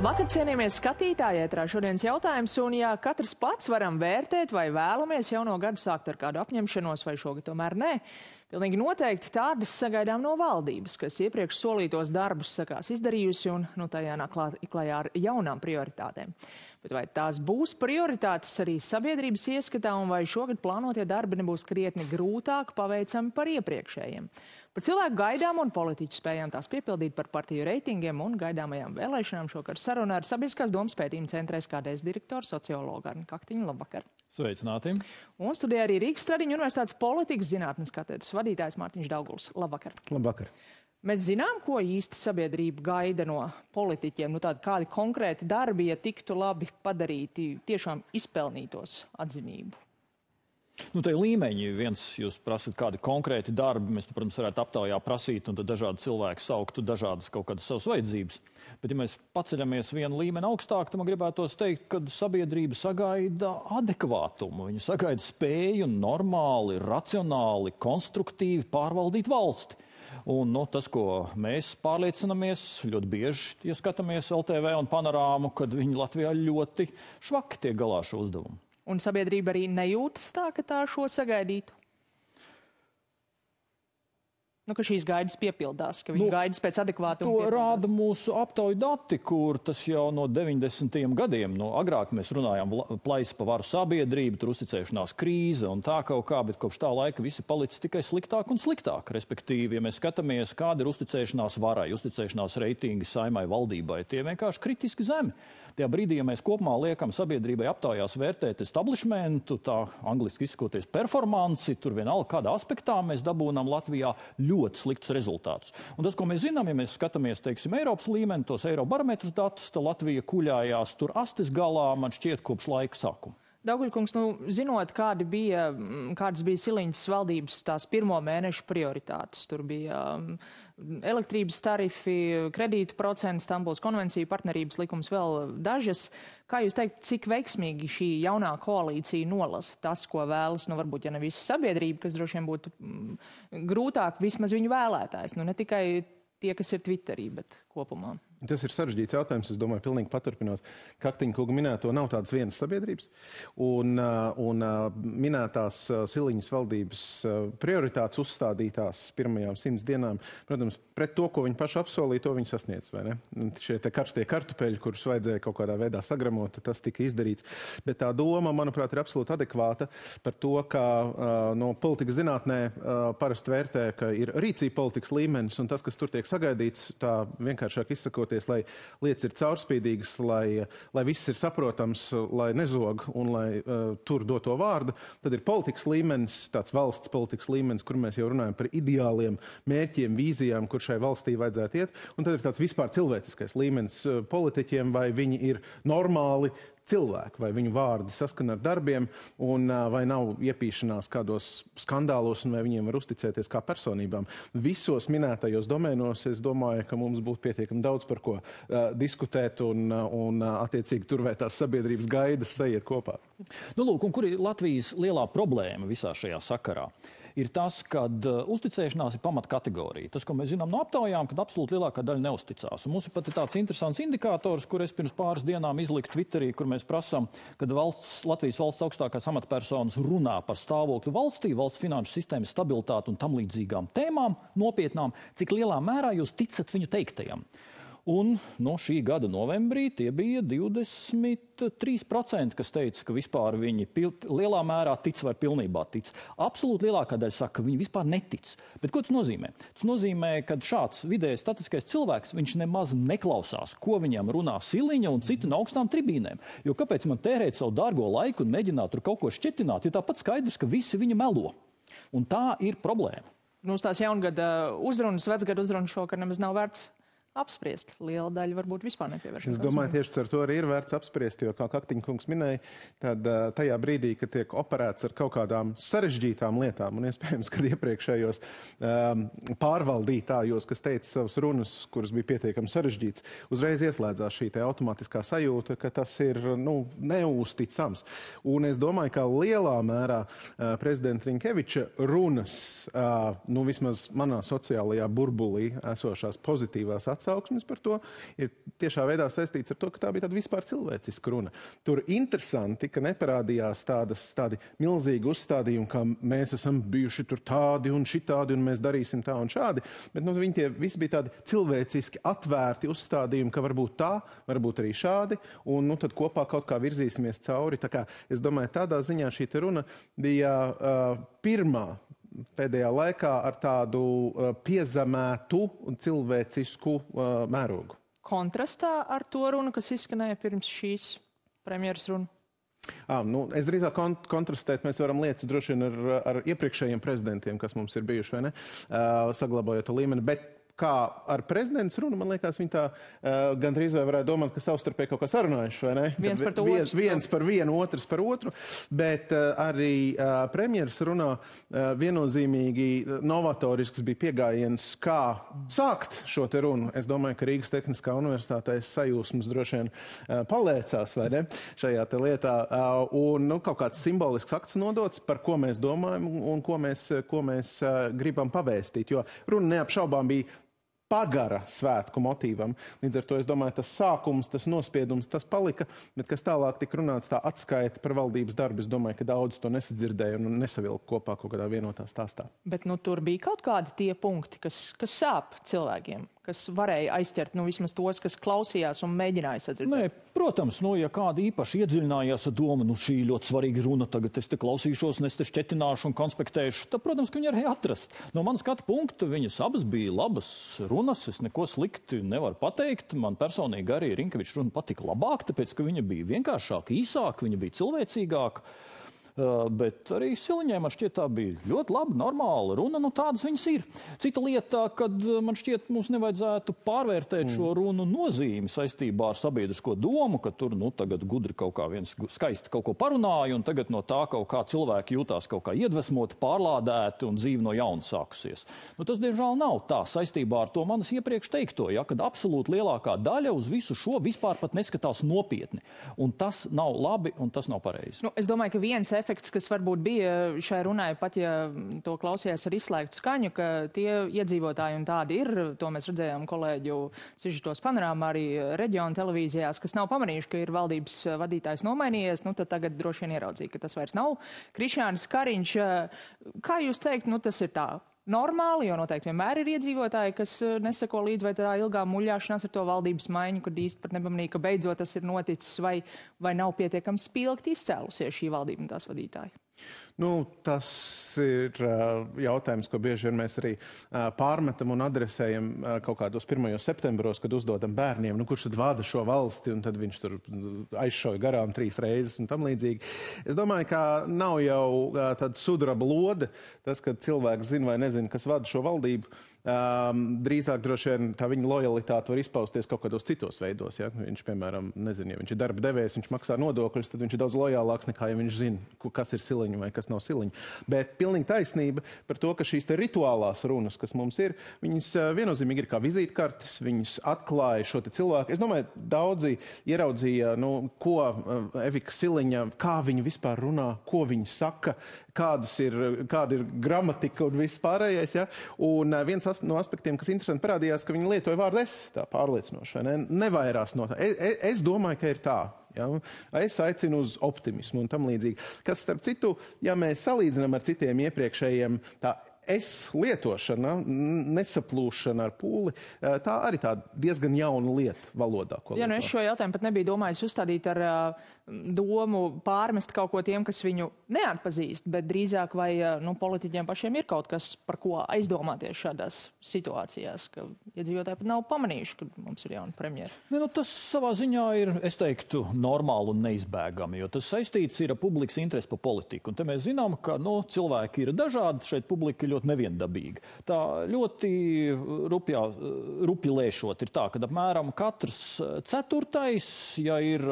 Labvakar, cienījamies skatītāji, ētrā šodienas jautājums, un ja katrs pats varam vērtēt, vai vēlamies jauno gadu sākt ar kādu apņemšanos, vai šogad tomēr nē, pilnīgi noteikti tādas sagaidām no valdības, kas iepriekš solītos darbus sakās izdarījusi un tajā nāk klajā ar jaunām prioritātēm. Bet vai tās būs prioritātes arī sabiedrības ieskatā, un vai šogad plānotie darbi nebūs krietni grūtāk paveicami par iepriekšējiem? Par cilvēku gaidām un politiķu spējām tās piepildīt, par partiju reitingiem un gaidāmajām vēlēšanām šokar sarunā ar Sabiedriskās domas pētījuma centra SKDS direktoru sociologu Arni Kaktiņu. Labvakar! Sveicināti! Un studijā arī Rīgas Stradiņu universitātes politikas zinātnes katedras vadītājs Mārtiņš Dauguls. Labvakar! Labvakar! Mēs zinām, ko īsti sabiedrība gaida no politiķiem, kādi konkrēti darbi, ja tiktu labi padarīti, tiešām izpelnītos atzinību. Te līmeņi viens, jūs prasat kādi konkrēti darbi, mēs, protams, varētu aptaujā prasīt, un tad dažādi cilvēki sauktu dažādas kaut kādas savas vajadzības. Bet, ja mēs paceļamies vienu līmeni augstāk, tad man gribētos teikt, ka sabiedrība sagaida adekvātumu. Viņa sagaida spēju normāli, racionāli, konstruktīvi pārvaldīt valsti. Un tas, ko mēs pārliecinamies, ļoti bieži, ja skatāmies LTV un Panorāmu, kad viņi Latvijā ļoti švaki tiek galā šo uzdevumu. Un sabiedrība arī nejūtas tā, ka tā šo sagaidītu? Ka šīs gaidas piepildās, ka viņi gaidas pēc adekvātuma piepildās. To rāda mūsu aptauju dati, kur tas jau no 90. gadiem, agrāk mēs runājām plaisa pa varu sabiedrību, tur uzticēšanās krīze un tā kaut kā, bet kopš tā laika visi palicis tikai sliktāk un sliktāk. Respektīvi, ja mēs skatāmies, kāda ir uzticēšanās varai, uzticēšanās reitingi saimai, valdībai, tie vienkārši kritiski zemi. Tajā brīdī, ja mēs kopumā liekam sabiedrībai aptaujās vērtēt establishmentu, tā angliski izsakoties performanci, tur vienalga kādā aspektā mēs dabūnām Latvijā ļoti sliktus rezultātus. Un tas, ko mēs zinām, ja mēs skatāmies, teiksim, Eiropas līmeni, tos Eirobarometrus datus, tad Latvija kuļājās tur astes galā, man šķiet, kopš laika sākuma. Dauguļkungs, zinot, kādas bija Siliņas valdības tās pirmo mēnešu prioritātes, tur bija elektrības tarifi, kredītu procenti, Stambulas konvencija, partnerības likums, vēl dažas. Kā jūs teikt, cik veiksmīgi šī jaunā koalīcija nolasa tas, ko vēlas, varbūt, ja ne visa sabiedrība, kas droši vien būtu grūtāk, vismaz viņu vēlētājs, ne tikai tie, kas ir Twitterī, bet kopumā? Tas ir sarežģīts jautājums, es domāju, pilnīgi paturpinot Kaktiņa kunga minēto, nav tādas vienas sabiedrības. Un minētās Siliņas valdības prioritātes uzstādītās pirmajām 100 dienām, protams, pret to, ko viņi paši apsolīja, to viņi sasniedz, vai ne? Šie te karstie kartupeļi, kurus vajadzēja kaut kādā veidā sagramot, tas tika izdarīts. Bet tā doma, manuprāt, ir absolūti adekvāta par to, ka no politikas zinātnē parasti vērtē, ka ir rīcība politikas līmenis, un tas, kas tur tiek sagaidīts, tā vienkāršāk izsakot, lai lietas ir caurspīdīgas, lai viss ir saprotams, lai nezog un lai tur doto vārdu, tad ir politikas līmenis, tāds valsts politikas līmenis, kur mēs jau runājam par ideāliem mērķiem, vīzijām, kur šai valstī vajadzētu iet, un tad ir tāds vispār cilvēciskais līmenis politiķiem, vai viņi ir normāli cilvēki, vai viņu vārdi saskana ar darbiem, un vai nav iepīšanās kādos skandālos, un vai viņiem var uzticēties kā personībām. Visos minētajos domēnos es domāju, ka mums būtu pietiekami daudz par ko diskutēt, un attiecīgi turvētās sabiedrības gaidas sajiet kopā. Lūk, un kur ir Latvijas lielā problēma visā šajā sakarā? Ir tas, ka uzticēšanās ir pamatkategorija. Tas, ko mēs zinām no aptaujām, kad absolūti lielākā daļa neusticās. Un mums ir pat tāds interesants indikators, kur es pirms pāris dienām izliku Twitterī, kur mēs prasām, kad Latvijas valsts augstākās amatpersonas runā par stāvokli valstī, valsts finanšu sistēmas stabilitāti un tam līdzīgām tēmām, nopietnām, cik lielā mērā jūs ticat viņu teiktajam. Un šī gada novembrī tie bija 23%, kas teica, ka vispār viņi lielā mērā tic vai pilnībā tic. Absolūti lielākā daļa saka, ka viņi vispār netic. Bet ko tas nozīmē? Tas nozīmē, ka šāds vidējais statiskais cilvēks, viņš nemaz neklausās, ko viņam runā Siliņa un citi no augstām tribīnēm. Jo kāpēc man tērēt savu dārgo laiku un mēģināt tur kaut ko šķetināt, jo tāpat skaidrs, ka visi viņa melo. Un tā ir problēma. Uz tās jaungada uzrunas, vecgada uzrunas šokar nemaz nav vērts apspriest. Liela daļa varbūt vispār nepievēršas. Es domāju, tieši ar to arī ir vērts apspriest, jo, kā Kaktiņa kungs minēja, tad tajā brīdī, kad tiek operēts ar kaut kādām sarežģītām lietām, un iespējams, kad iepriekšējos pārvaldītājos, kas teica savas runas, kuras bija pietiekami sarežģīts, uzreiz ieslēdzās šī te automātiskā sajūta, ka tas ir neusticams. Un es domāju, ka lielā mērā prezidenta Rinkeviča runas, vismaz manā sociālajā burbulī esošās pozitīvās atsauksmes par to, ir tiešā veidā saistīts ar to, ka tā bija tāda vispār cilvēciska runa. Tur interesanti, ka neparādījās tādi milzīgi uzstādījumi, ka mēs esam bijuši tur tādi un šitādi un mēs darīsim tā un šādi, bet viņi tie visi bija tādi cilvēciski atvērti uzstādījumi, ka varbūt tā, varbūt arī šādi, un tad kopā kaut kā virzīsimies cauri. Tā kā es domāju, tādā ziņā šī runa bija pirmā pēdējā laikā ar tādu piezemētu un cilvēcisku mērogu. Kontrastā ar to runu, kas izskanēja pirms šīs premjeras runu? Es drīzāk kontrastēt mēs varam lietas droši vien ar iepriekšējiem prezidentiem, kas mums ir bijuši, vai ne, saglabājot to līmeni, bet kā ar prezidents runu, man liekas, viņi tā gandrīz vai varētu domāt, ka savstarpēji kaut kā sarunājuši, vai ne? Viens par vienu, otrs par otru, bet arī premjeras runā viennozīmīgi novatorisks bija piegājiens, kā sākt šo te runu. Es domāju, ka Rīgas Tehniskā universitātē sajūsmas droši vien palēcās, vai ne, šajā te lietā, un kaut kāds simbolisks akts nodots, par ko mēs domājam un ko mēs gribam pavēstīt, jo runa neapšaubām bija pagara svētku motīvam. Līdz ar to, es domāju, tas sākums, tas nospiedums, tas palika, bet kas tālāk tika runāts tā atskaita par valdības darbu, es domāju, ka daudz to nesadzirdēja un nesavilka kopā kaut kādā vienotā stāstā. Bet tur bija kaut kādi tie punkti, kas sāp cilvēkiem, kas varēja aizķert, vismaz tos, kas klausījās un mēģināja sadzirdēt. Nē, protams, ja kādi īpaši iedziļinājās ar domu, šī ļoti svarīga runa, tagad es te klausīšos, un es te šķetināšu un konspektēšu, tad, protams, ka viņi arī atrast. No manas skatu punkta viņas abas bija labas runas, es neko slikti nevaru pateikt. Man personīgi arī Rinkeviča runa patika labāk, tāpēc, ka viņa bija vienkāršāka, īsāka, viņa bija cilvēcīgāka. Bet arī Siliņai man šķiet tā bija ļoti laba, normāla runa, tādas viņas ir. Cita lieta, kad man šķiet mums nevajadzētu pārvērtēt šo runu nozīmi saistībā ar sabiedrisko domu, ka tur tagad gudri kaut kā viens skaisti kaut ko parunāja un tagad no tā kaut kā cilvēki jūtās kaut kā iedvesmoti, pārlādēti un dzīve no jauna sākusies. Tas, diemžēl, nav tā saistībā ar to manis iepriekš teikto, kad absolūti lielākā daļa uz visu šo vispār pat neskatās nopietni. Un tas nav labi un tas nav pareizi. Es domāju, ka viens efekts, kas varbūt bija šai runai, pat ja to klausījās ar izslēgtu skaņu, ka tie iedzīvotāji un tādi ir, to mēs redzējām kolēģu sižetos panorāmā arī reģionu televīzijās, kas nav pamanījuši, ka ir valdības vadītājs nomainījies, tad tagad droši vien ieraudzīja, ka tas vairs nav Krišjānis Kariņš. Kā jūs teikt, tas ir tā normāli, jo noteikti vienmēr ir iedzīvotāji, kas neseko līdz vai tā ilgā muļāšanās ar to valdības maiņu, kad īsti pat nepamanīja, ka beidzot tas ir noticis, vai nav pietiekami spilgti izcēlusies šī valdība un tās vadītāji? Tas ir jautājums, ko bieži vien mēs arī pārmetam un adresējam kaut kādos 1. septembros, kad uzdodam bērniem, kurš tad vada šo valsti, un tad viņš tur aizšauja garām 3 reizes un tam līdzīgi. Es domāju, ka nav jau tāda sudraba lode, tas, kad cilvēks zina vai nezina, kas vada šo valdību. Drīzāk droši vien tā viņa lojalitāte var izpausties kaut kādos citos veidos. Ja? Viņš, piemēram, nezina, ja viņš ir darba devējs, viņš maksā nodokļus, tad viņš ir daudz lojālāks nekā, ja viņš zina, kas ir Siliņa vai kas nav Siliņa. Bet pilnīgi taisnība par to, ka šīs te rituālās runas, kas mums ir, viņas viennozīmīgi ir kā vizītkartes, viņas atklāja šo te cilvēku. Es domāju, daudzi ieraudzīja, ko Evika Siliņa, kā viņa vispār runā, ko viņa saka, kāda ir gramatika un viss pārējais. Ja? Un viens no aspektiem, kas interesanti parādījās, ka viņi lietoja vārdu es, tā pārliecinoši, nevairās no tā. Es domāju, ka ir tā. Ja? Es aicinu uz optimismu un tam līdzīgi. Kas, starp citu, ja mēs salīdzinām ar citiem iepriekšējiem, tā es lietošana, nesaplūšana ar pūli, tā arī tā diezgan jauna lieta valodā. Es šo jautājumu pat nebiju domājis uzstādīt ar domu pārmest kaut ko tiem, kas viņu neatpazīst, bet drīzāk vai politiķiem pašiem ir kaut kas, par ko aizdomāties šādās situācijās, ka iedzīvotāji pat nav pamanījuši, ka mums ir jauna premjera. Tas savā ziņā ir, es teiktu, normāli un neizbēgami, jo tas saistīts ir ar publikas interesi par politiku. Un te mēs zinām, ka cilvēki ir dažādi, šeit publika ir ļoti neviendabīga. Tā ļoti rupi lēšot ir tā, ka apmēram katrs ceturtais, ja ir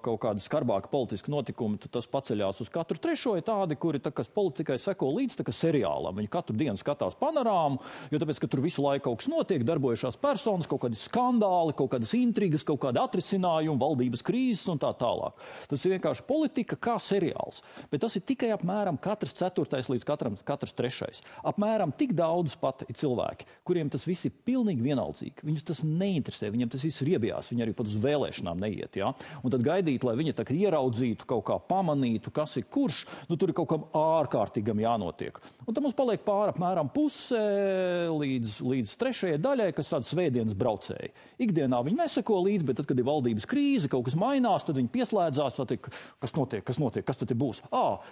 kaut kāda skarbā skarbāki politiski notikumi, tad tas paceļās uz katru trešo, ir tādi, kuri, kas politikai seko līdz seriālam. Viņi katru dienu skatās panorāmu, jo tāpēc, ka tur visu laiku kaut kas notiek, darbojušās personas, kaut kādi skandāli, kaut kādas intrigas, kaut kādi atrisinājumi, valdības krīzes un tā tālāk. Tas ir vienkārši politika kā seriāls. Bet tas ir tikai apmēram katrs ceturtais līdz katrs trešais. Apmēram tik daudz pat ir cilvēki, kuriem tas viss ir pilnīgi vienaldzīgi. Viņus tas neinteresē, viņiem tas viss riebjās, viņi arī pat uz vēlēšanām neiet. Ja? Un tad gaidīt, lai viņi tā ieraudzītu, kaut kā pamanītu, kas ir kurš, tur ir kaut kam ārkārtīgam jānotiek. Un tad mums paliek pāri apmēram puse līdz trešajai daļai, kas tāda svētdienas braucēji. Ikdienā viņi neseko līdzi, bet tad, kad ir valdības krīze, kaut kas mainās, tad viņi pieslēdzās, tad kas notiek, kas tad būs?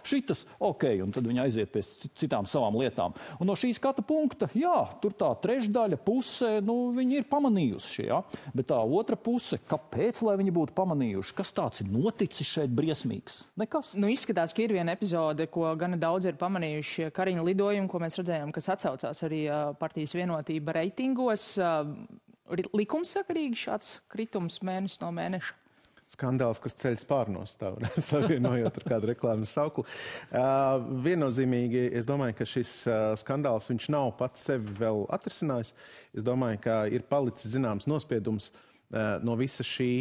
Šitas, ok, un tad viņi aiziet pie citām savām lietām. Un no šī skata punkta, jā, tur tā trešdaļa puse, viņi ir pamanījuši, ja? Bet tā otra puse, kāpēc, lai viņi būtu pamanījuši? Kas tāds ir noticis šeit briesmīgs? Nekas. Izskatās, ka ir viena epizode, ko gana daudz ir pamanījuši Kariņa lidojumi, ko mēs redzējām, kas atsaucās arī partijas Vienotība reitingos. Likumsakarīgi šāds kritums mēnesis no mēneša? Skandāls, kas ceļ spārnos, tā savienojot ar kādu reklāmas sauklu. Viennozīmīgi, es domāju, ka šis skandāls, viņš nav pats sevi vēl atrisinājis. Es domāju, ka ir palicis zināms nospiedums no visa šī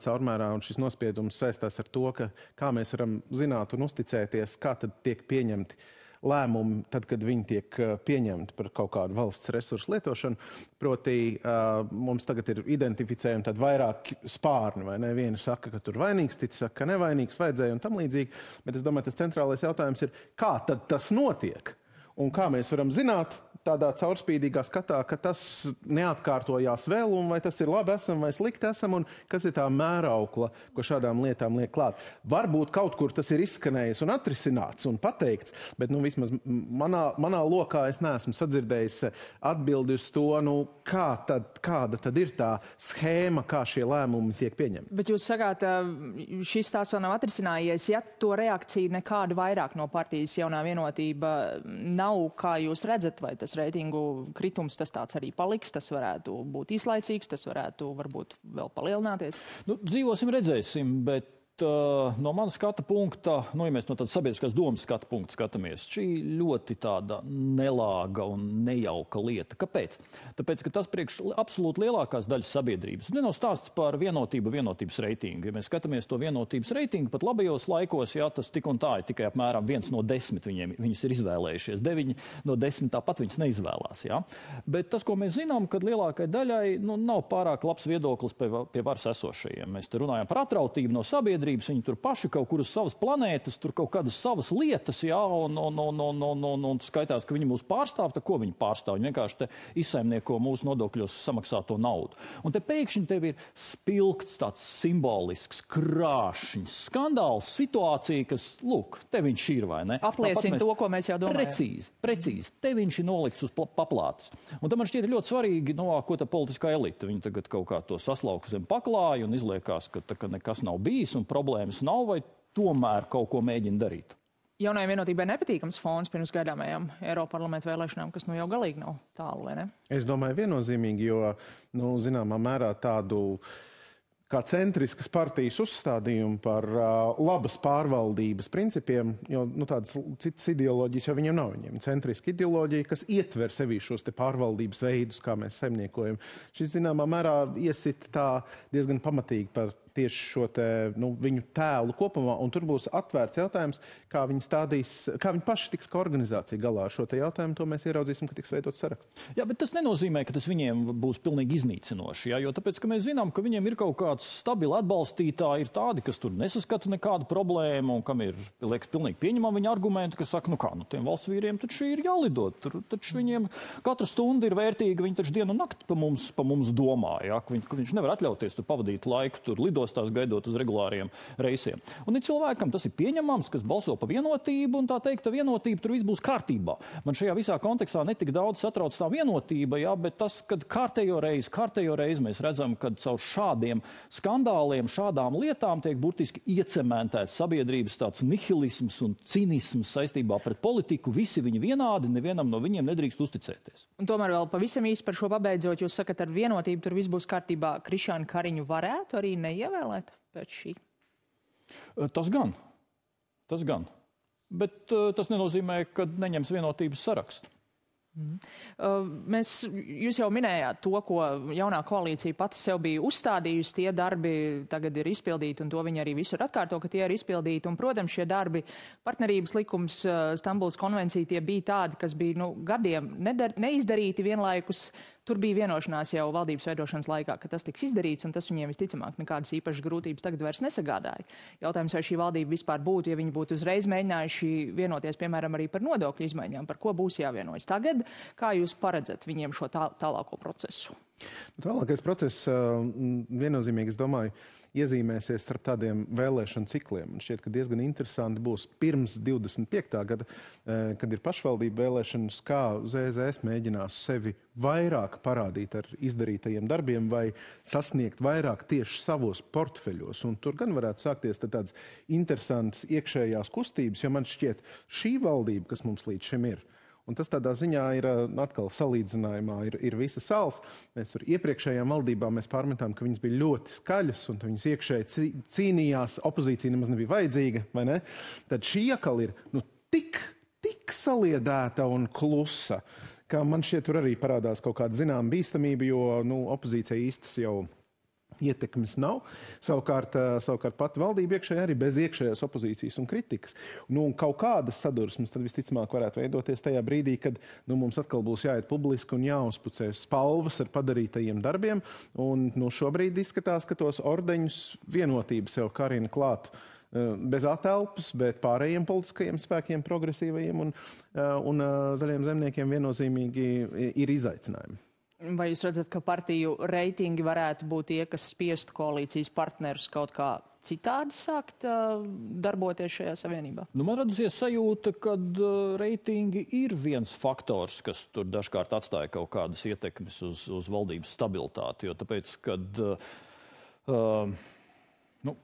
caurmērā, un šis nospiedums saistās ar to, kā mēs varam zināt un uzticēties, kā tad tiek pieņemti lēmumi, tad, kad viņi tiek pieņemti par kaut kādu valsts resursu lietošanu. Proti, mums tagad ir identificējumi tad vairāk spārni, vai ne? Vieni saka, ka tur vainīgs, citi saka, ka nevainīgs, vajadzēja un tam līdzīgi. Bet es domāju, tas centrālais jautājums ir, kā tad tas notiek? Un kā mēs varam zināt tādā caurspīdīgā skatā, ka tas neatkārtojās vēl, un vai tas ir labi esam vai slikti esam, un kas ir tā mēraukla, ko šādām lietām liek klāt. Varbūt kaut kur tas ir izskanējis un atrisināts un pateikts, bet vismaz manā lokā es neesmu sadzirdējis atbildi uz to, kāda tad ir tā schēma, kā šie lēmumi tiek pieņemti. Bet jūs sakāt, šis tās vēl nav atrisinājies, ja to reakciju nekādu vairāk no partijas Jaunā Vienotība nav, kā jūs redzat, vai tas reitingu kritums tas tāds arī paliks, tas varētu būt īslaicīgs, tas varētu varbūt vēl palielināties? Dzīvosim, redzēsim, bet no manas skata punkta, ja mēs no tādas sabiedriskās domas skata punkta skatāmies, šī ļoti tāda nelāga un nejauka lieta. Kāpēc? Tāpēc, ka tas priekš absolūti lielākās daļas sabiedrības. Nav stāsts par vienotības reitingu. Ja mēs skatāmies to vienotības reitingu, pat labajos laikos, jā, tas tik un tā ir tikai apmēram 1 no 10 viņus ir izvēlējušies. 9 no 10 tāpat viņus neizvēlās. Jā. Bet tas, ko mēs zinām, kad lielākai daļai nav pārāk labs viedoklis pie varas esošajiem. Mēs te runājam par atrautību no sabiedrības. Viņi tur paši kaut kur uz savas planētas, tur kaut kādas savas lietas, jā, un skaitās, ka viņi mūs pārstāv, tad ko viņi pārstāv? Viņi vienkārši te izsaimnieko mūsu nodokļos samaksāto naudu. Un te pēkšņi tev ir spilgts tāds simbolisks, krāšņs skandāls, situācija, kas, lūk, te viņš ir, vai ne? Apliecina to, ko mēs jau domājam. Precīzi. Te viņš ir nolikts uz paplātes. Un tam man šķiet ļoti svarīgi, ko tā politiskā elite. Viņi tagad kaut kā to saslauka zem paklāja un izliekās, ka nekas nav bijis un problēmas nav, vai tomēr kaut ko mēģina darīt? Jaunajai Vienotībai nepatīkams fons pirms gaidāmajām Eiroparlamenta vēlēšanām, kas jau galīgi nav tālu, vai ne? Es domāju viennozīmīgi, jo, zināmā mērā tādu kā centriskas partijas uzstādījumu par labas pārvaldības principiem, jo tādas citas ideoloģijas jau viņiem nav. Viņiem centriska ideoloģija, kas ietver sevī šos te pārvaldības veidus, kā mēs saimniekojam. Šis, zināmā mērā, iesit tā diezgan pamatīgi par tieši šo te, viņu tēlu kopumā, un tur būs atvērts jautājums, kā viņi paši tiks kā organizācija galā ar šo te jautājumu, to mēs ieraudzīsim, ka tiks veidots saraksts. Jā, bet tas nenozīmē, ka tas viņiem būs pilnīgi iznīcinoši, jā, jo tāpēc, ka mēs zinām, ka viņiem ir kaut kāds stabili atbalstītāji, ir tādi, kas tur nesaskata nekādu problēmu, un kam ir, liekas, pilnīgi pieņemami viņa argumenti, kas saka, tiem valsts vīriem taču ir jālidot, taču viņiem katra stunda ir vērtīga, viņi taču dienu un nakti pa mums domā, jā, ka viņš nevar atļauties tur pavadīt laiku, tur lidostās gaidot uz regulāriem reisiem. Un ir cilvēkam tas ir pieņemams, kas balso pa vienotību, un tā teikt, ka vienotība tur viss būs kārtībā. Man šajā visā kontekstā netik daudz satrauc tā vienotība, jā, bet tas, kad kārtējo reizi mēs redzam, kad caur šādiem skandāliem, šādām lietām tiek burtiski iecementēts sabiedrības tāds nihilisms un cinisms saistībā pret politiku, visi viņi vienādi, nevienam no viņiem nedrīkst uzticēties. Un tomēr vēl pavisam īsi par šo pabeidzot, jūs sakat, ar vienotību tur viss būs kārtībā. Krišjānu Kariņu varētu arī neievēlēt pēc šī? Tas gan. Bet tas nenozīmē, ka neņems vienotības sarakstu. Jūs jau minējāt to, ko jaunā koalīcija pati sev bija uzstādījusi. Tie darbi tagad ir izpildīti, un to viņi arī visur atkārto, ka tie ir izpildīti. Un, protams, šie darbi, partnerības likums, Stambulas konvencija, tie bija tādi, kas bija gadiem neizdarīti vienlaikus. Tur bija vienošanās jau valdības veidošanas laikā, ka tas tiks izdarīts, un tas viņiem visticamāk nekādas īpašas grūtības tagad vairs nesagādāja. Jautājums, vai šī valdība vispār būtu, ja viņi būtu uzreiz mēģinājuši vienoties, piemēram, arī par nodokļu izmaiņām, par ko būs jāvienojas tagad. Kā jūs paredzat viņiem šo tālāko procesu? Tālākais process viennozīmīgi, es domāju, iezīmēsies starp tādiem vēlēšanu cikliem. Un šķiet, ka diezgan interesanti būs pirms 25. gada, kad ir pašvaldību vēlēšanas, kā ZZS mēģinās sevi vairāk parādīt ar izdarītajiem darbiem vai sasniegt vairāk tieši savos portfeļos. Un tur gan varētu sākties tādas interesantas iekšējās kustības, jo man šķiet šī valdība, kas mums līdz šim ir, un tas tādā ziņā ir atkal salīdzinājumā, ir visa sals. Mēs tur iepriekšējām valdībām mēs pārmetām, ka viņas bija ļoti skaļas un viņas iekšēji cīnījās, opozīcija nemaz nebija vajadzīga, vai ne? Tad šī atkal ir tik saliedēta un klusa, ka man šķiet tur arī parādās kaut kāda zināma bīstamība, jo opozīcija īstas jau ietekmes nav. Savukārt pati valdība iekšēji arī bez iekšējās opozīcijas un kritikas. Un kaut kādas sadursmes tad visticamāk varētu veidoties tajā brīdī, kad mums atkal būs jāiet publiski un jāuzpucē spalvas ar padarītajiem darbiem. Un šobrīd izskatās, ka tos ordeņus vienotība sev karina klāt bez atelpas, bet pārējiem politiskajiem spēkiem, progresīvajiem un zaļiem zemniekiem viennozīmīgi ir izaicinājumi. Vai jūs redzat, ka partiju reitingi varētu būt tie, kas spiestu koalīcijas partnerus kaut kā citādi sākt darboties šajā savienībā? Man radusies sajūta, ka reitingi ir viens faktors, kas tur dažkārt atstāja kaut kādas ietekmes uz valdības stabilitāti. Jo tāpēc, kad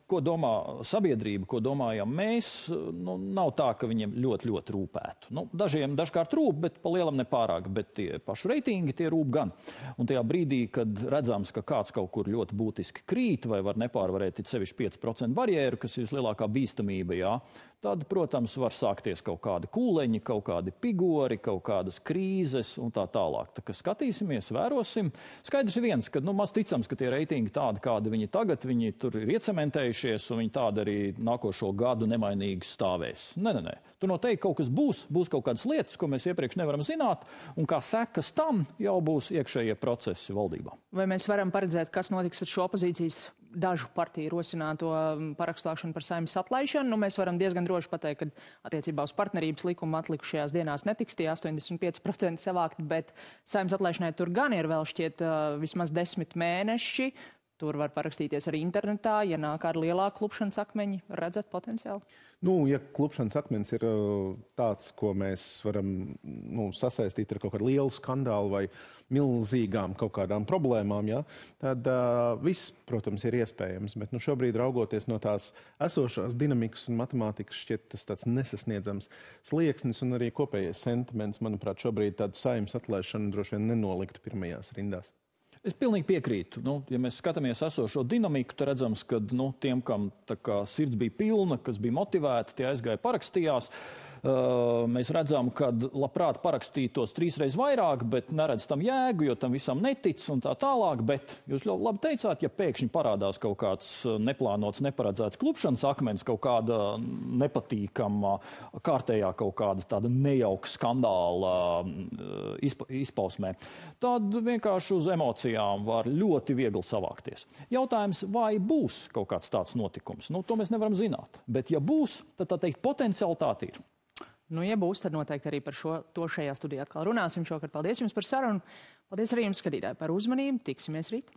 ko domā sabiedrība, ko domājam mēs, nav tā, ka viņiem ļoti rūpētu. Dažiem dažkārt rūp, bet pa lielam nepārāk, bet tie paši reitingi tie rūp gan. Un tajā brīdī, kad redzams, ka kāds kaut kur ļoti būtiski krīt vai var nepārvarēt sevišķi 5% barjeru, kas ir vislielākā bīstamība, tad, protams, var sākties kaut kādi kūleņi, kaut kādi pigori, kaut kādas krīzes un tā tālāk. Tā kā skatīsimies, vērosim. Skaidrs ir viens, ka maz ticams, ka tie reitingi tādi, kādi viņi tagad, viņi tur ir iecementējušies un viņi tādi arī nākošo gadu nemainīgi stāvēs. Nē. Tur noteikti kaut kas būs kaut kādas lietas, ko mēs iepriekš nevaram zināt, un kā sekas tam jau būs iekšējie procesi valdībā. Vai mēs varam paredzēt, kas notiks ar šo opozīcijas dažu partiju rosināto parakstāšanu par Saeimas atlaišanu? Mēs varam diezgan droši pateikt, ka attiecībā uz partnerības likumu atlikušajās dienās netiks tie 85% savākt, bet Saeimas atlaišanai tur gan ir vēl šķiet vismaz 10 mēneši. Tur var parakstīties arī internetā, ja nāk ar lielāku klupšanas akmeņi. Redzat potenciāli? Ja klupšanas akmens ir tāds, ko mēs varam sasaistīt ar kaut kādu lielu skandālu vai milzīgām kaut kādām problēmām, tad viss, protams, ir iespējams. Bet šobrīd raugoties no tās esošās dinamikas un matemātikas šķiet tas tāds nesasniedzams slieksnis un arī kopējais sentiments, manuprāt, šobrīd tādu Saeimas atlaišanu droši vien nenoliktu pirmajās rindās. Es pilnīgi piekrītu. Ja mēs skatāmies esošo dinamiku, tad redzams, ka tiem, kam sirds bija pilna, kas bija motivēti, tie aizgāja parakstījās. Mēs redzam, ka labprāt parakstītos 3 reizes vairāk, bet neredz tam jēgu, jo tam visam netic un tā tālāk. Bet jūs ļoti labi teicāt, ja pēkšņi parādās kaut kāds neplānots, neparedzēts klupšanas akmens, kaut kāda nepatīkama, kārtējā kaut kāda tāda nejauka skandāla izpausmē, tad vienkārši uz emocijām var ļoti viegli savākties. Jautājums, vai būs kaut kāds tāds notikums? To mēs nevaram zināt. Bet ja būs, tad tā teikt potencialitāte ir. Ja būs, tad noteikti arī par to šajā studijā atkal runāsim šokar. Paldies jums par sarunu. Paldies arī jums, skatītāji, par uzmanību. Tiksimies rīt.